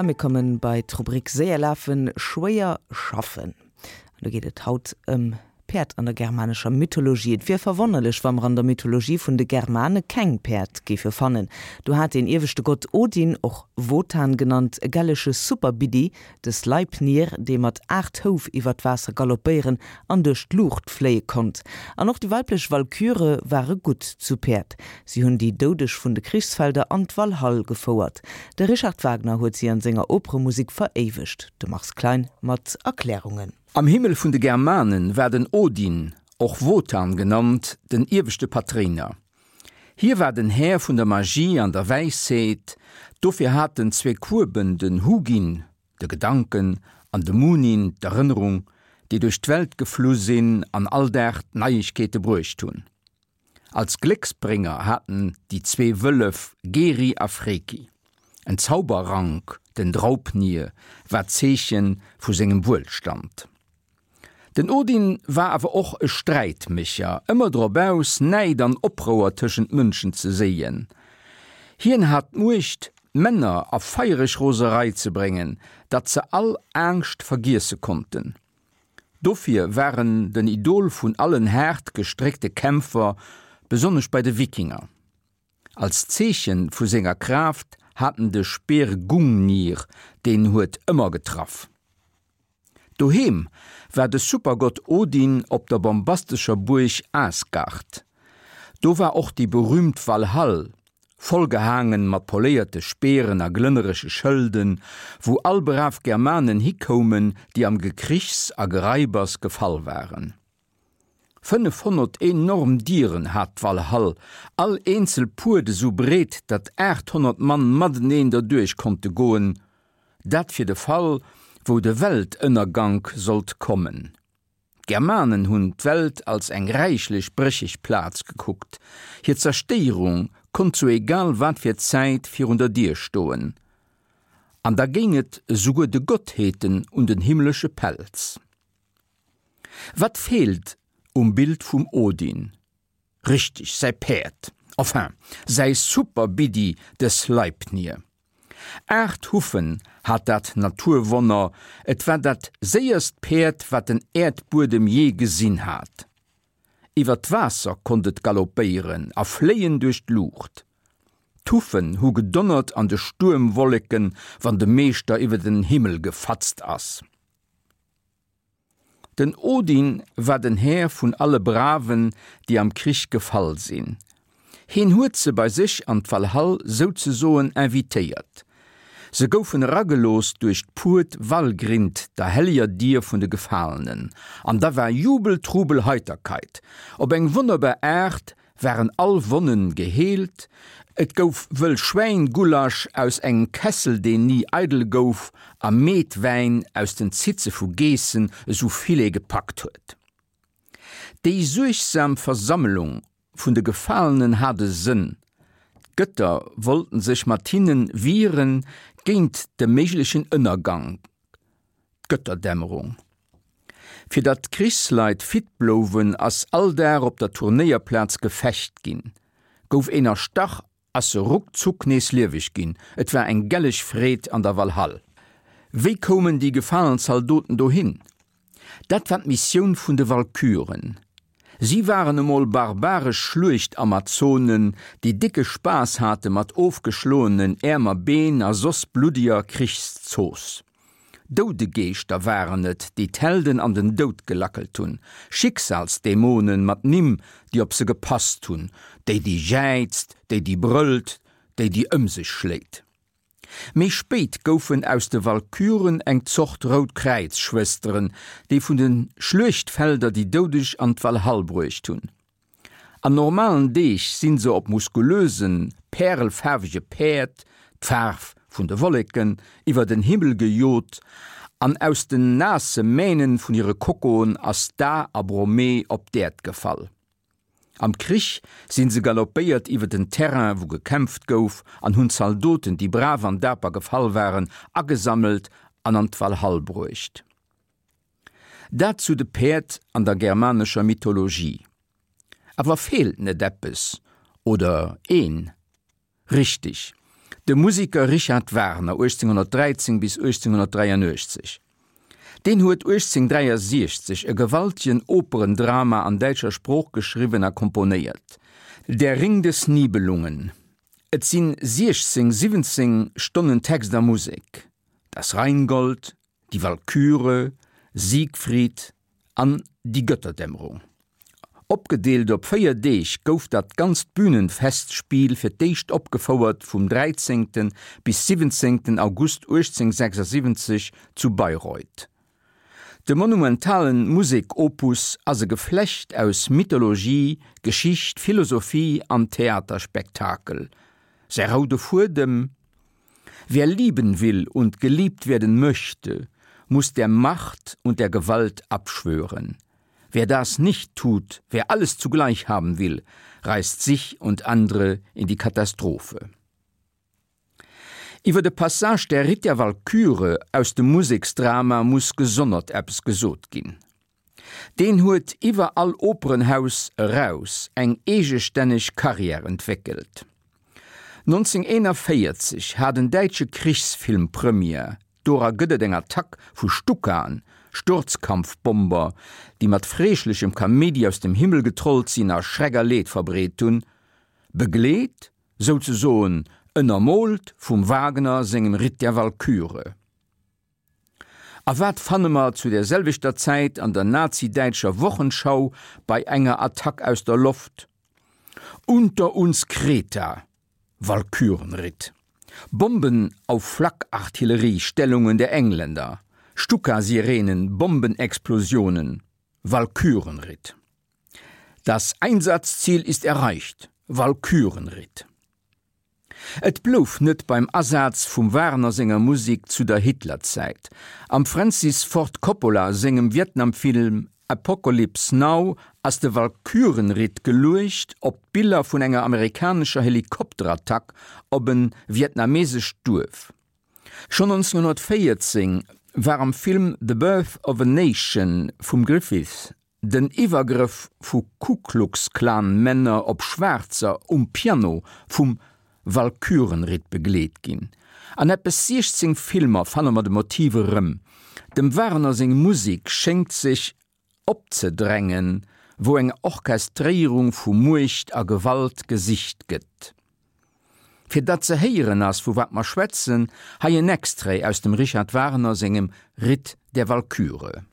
A mir kommen bei d'Rubrik Séier lafen, schwéier schaffen. An do geet et haut ëm Päerd an der germanescher Mythologie. Et wier verwonnerlech, wa mer an der Mythologie vun de Germane keng Päerd géife fannen. Do hat deen ieweschte Gott Odin, och Wotan genannt, e gellege Superbiddi, De Sleipnir, dee mat 8 Houf iwwer d'Waasser galoppéieren an duerch d'Luucht fléie konnt. An och déi weiblech Walküre ware gutt zu Päerd. Si hunn déi Doudeg vun de Krichsfelder an d'Walhall gefouert. De Richard Wagner huet si an senger Operemusek veréiwegt. De Mars Klein mat Erklärungen. Am Himmel vun de Germanen war den Odin, och Wotan genannt, den ieweschte Patréiner. Hie war den Här vun der Magie an der Wäisheet, dofir hat en zwee Kueben, den Hugin, de Gedanken, an de Munin, d'Erënnerung, déi duerch d'Welt geflu sinn an all Dag d'Neiegkeete bruecht hunn. Als Glécksbrénger hat en déi zwee Wëllef Geri a Freki. En Zauberrank, den Draupnir, war d'Zeeche vu sengem Wuelstand. Den Odin war awer och e Sträitmécher, ëmmer drop aus, Näid an Oprouer tëschent Mënschen ze séien. Hien hat d'Muecht, d'Männer a feiereg Roserei ze bréngen, datt se all Angscht vergiesse konnten. Dofir war en den Idol vun allen haart gestréckte Kämpfer, besonnesch bei de Wikinger. Als Zeeche vu senger Kraaft hat en de Speer Gungnir, deen huet ëmmer getraff. Doheem war de Supergott Odin op der bombastescher Buerg Asgard. Do war och déi berüümt Walhall, vollgehaangen mat poléierte Speeren a glënnerege Schëlden, wou all brav Germanen hikoumen, déi am Gekrichs a Geraibers gefall waren. 500 enorm Dieren hat d'Walhall, all eenzel Puert esou breet, datt 800 Mann mateneen derduerch konnte goen, dat fir de Fall, wou de Weltënnergank sollt kommen. D'Germanen hunn d'Welt als eng räichlech brécheg Plaz gekuckt, hir Zerstéierung konnt zu egal wat fir Zäit virun der Dier stoen, an da géing et esouguer de Gottheeten un den himmlesche Pelz. Wat feelt um Bild vum Odin? Richteg, säi Päerd, enfin, säi Super-Biddi, de Sleipnir. 8 Huffen hat dat Naturwonner, et war dat séierst Päerd, wat den Äerdbuedem jee gesinn hat. Iwwer d'Waasser konnt et galoppéieren a fléien duerch d'Luucht. D'Huffen hu gedonnert an de Stuermwolleken, wann de Meeschter iwwer den Himmel gefatzt ass. Den Odin war den Här vun alle Braven, déi am Krich gefall sinn. Heen huet se bei sech an d'Walhall souzesoen invitéiert. Se goufen eragelooss duerch d'Puert Valgrind, der helleger Dier vun de Gefalenen. An da war Jubel, Trubel, Heiterkeit. Op eng wonnerbar Aart waren all Wonnen geheelt, et gouf wëll Schwäin-Gulasch aus engem Kessel, deen ni eidel gouf, a Meetwäin aus den Zitze vu Geessen, esou vill ee gepackt huet. Déi suergsam Versammelung vun de Gefalenen hat e Sënn, d'Gëtter wollten sech mat hinne wiere géint de méiglechen Ënnergank, d'Gëtterdämmerung. Fir datt d'Krichsleit fit blouwen, ass all Dag op der Turnéierplaz gefecht ginn. Gouf een erstach, ass se ruckzuck nees lieweg ginn. Et war eng gelleg Freed an der Walhall. Wéi koumen déi gefalen Zaldoten dohin? Dat war d'Missioun vun de Walküren. Si waren emol barbaresch Schluechtamazonen, déi décke Spaass hate mat ofgeschloenen Äerm a Been a soss bluddeger Krichszooss. Doudegeeschter waren et, déi d'Helden an den Doud gelackelt hunn, Schicksalsdämonen mat Nimm, déi op se gepasst hunn, déi, déi jäizt, déi, déi brëllt, déi, déi ëm sech schléit. Méi spéit goufen aus de Walküren eng Zort Rout-Kräiz-Schwësteren, déi vun de Schluechtfelder déi Doudeg an d'Walhall bruecht hunn. An normalen Deeg sinn se op muskulösen, pärelfaarwege Päerd, d'Faarf vun de Wolleken, iwwer den Himmel gejot an aus den naasse Mähnen vun hire Kokoen ass d'A a Bromee op d'Äerd gefall. Am Krich sinn se galoppéiert iwwer den Terrain wou gekämpft gouf an hunn d'Zaldoten, déi brav an daper gefall waren, agesammelt an an d'Walhall bruecht. Dat zu de Päerd an der germanescher Mythologie. Awer feelt net eppes oder een? Richteg! De Musiker Richard Wagner, 1813 bis 1883, deen huet 1863 e gewaltegen Operendrama an däitscher Sprooch geschriwwen a komponéiert, Der Ring des Nibelungen. Et sinn 16, 17 Stonnen Text a Musek, Das Rheingold, Die Walküre, Siegfried an Die Götterdämmerung. Opgedeelt op 4 Deeg gouf dat ganzt Bühnenfestspiel fir d'éischt opgefouert vum 13. bis 17. August 1876 zu Bayreuth. De monumentalen Musek-Opus ass e Geflecht aus Mythologie, Geschicht, Philosophie an Theaterspektakel. Säi roude Fuedem? Wer lieben will und geliebt werden möchte, muss der Macht und der Gewalt abschwören. Wer das nicht tut, wer alles zugleich haben will, reißt sich und andere in die Katastrophe. Iwwer de Passage Der Ritt der Walküre aus dem Museksdrama muss gesonnert eppes gesot ginn. Deen huet iwwer all Operenhaus eraus eng eegestänneg Karriär entwéckelt. 1941 hat en däitsche Krichsfilm Première, dora gëtt et eng Attack vu Stukaen, Sturzkampfbomber, déi mat freeschlechem Kaméidi aus dem Himmel getrollt sinn a Schreck a Leed verbreet hunn, begleet, souzesoen ënnermoolt vum Wagner sengem Ritt der Walküre. A wat fanne mer zu der selwechter Zäit an der nazi-däitscher Wochenschau bei enger Attack aus der Loft? Unter uns Kreta, Walkürenritt. Bomben auf Flakartillerie-Stellungen der Engländer, Stuka-Sirenen, Bombenexplosionen, Walkürenritt. Das Einsatzziel ist erreicht, Walkürenritt. Et blouf net beim Asaz vum Wagner senger Musek zu der Hitlerzäit. Am Francis Ford Coppola sengem Vietnamfilm Apocalypse Now ass de Walkürenritt geluecht op d'Biller vun enger amerikanescher Helikopterattack op en vietnamesescht Duerf. Schonn 1914 war am Film The Birth of a Nation vum Griffith Den Iwwergrëff vu Ku-Klux-Klan-Männer op Schwaarzer um Piano vum Walkürenritt begleet ginn. An eppes 16 Filmer fanne mer de Motiv erëm. Dem Wagner seng Musek schéngt sech opzedrängen, wou eng Orchestréierung vu Muecht a Gewalt gesicht gëtt. Fir datt ze héieren ass, vu wat mer schwätzen, hei en Extrait aus dem Richard Wagner sengem Ritt der Walküre.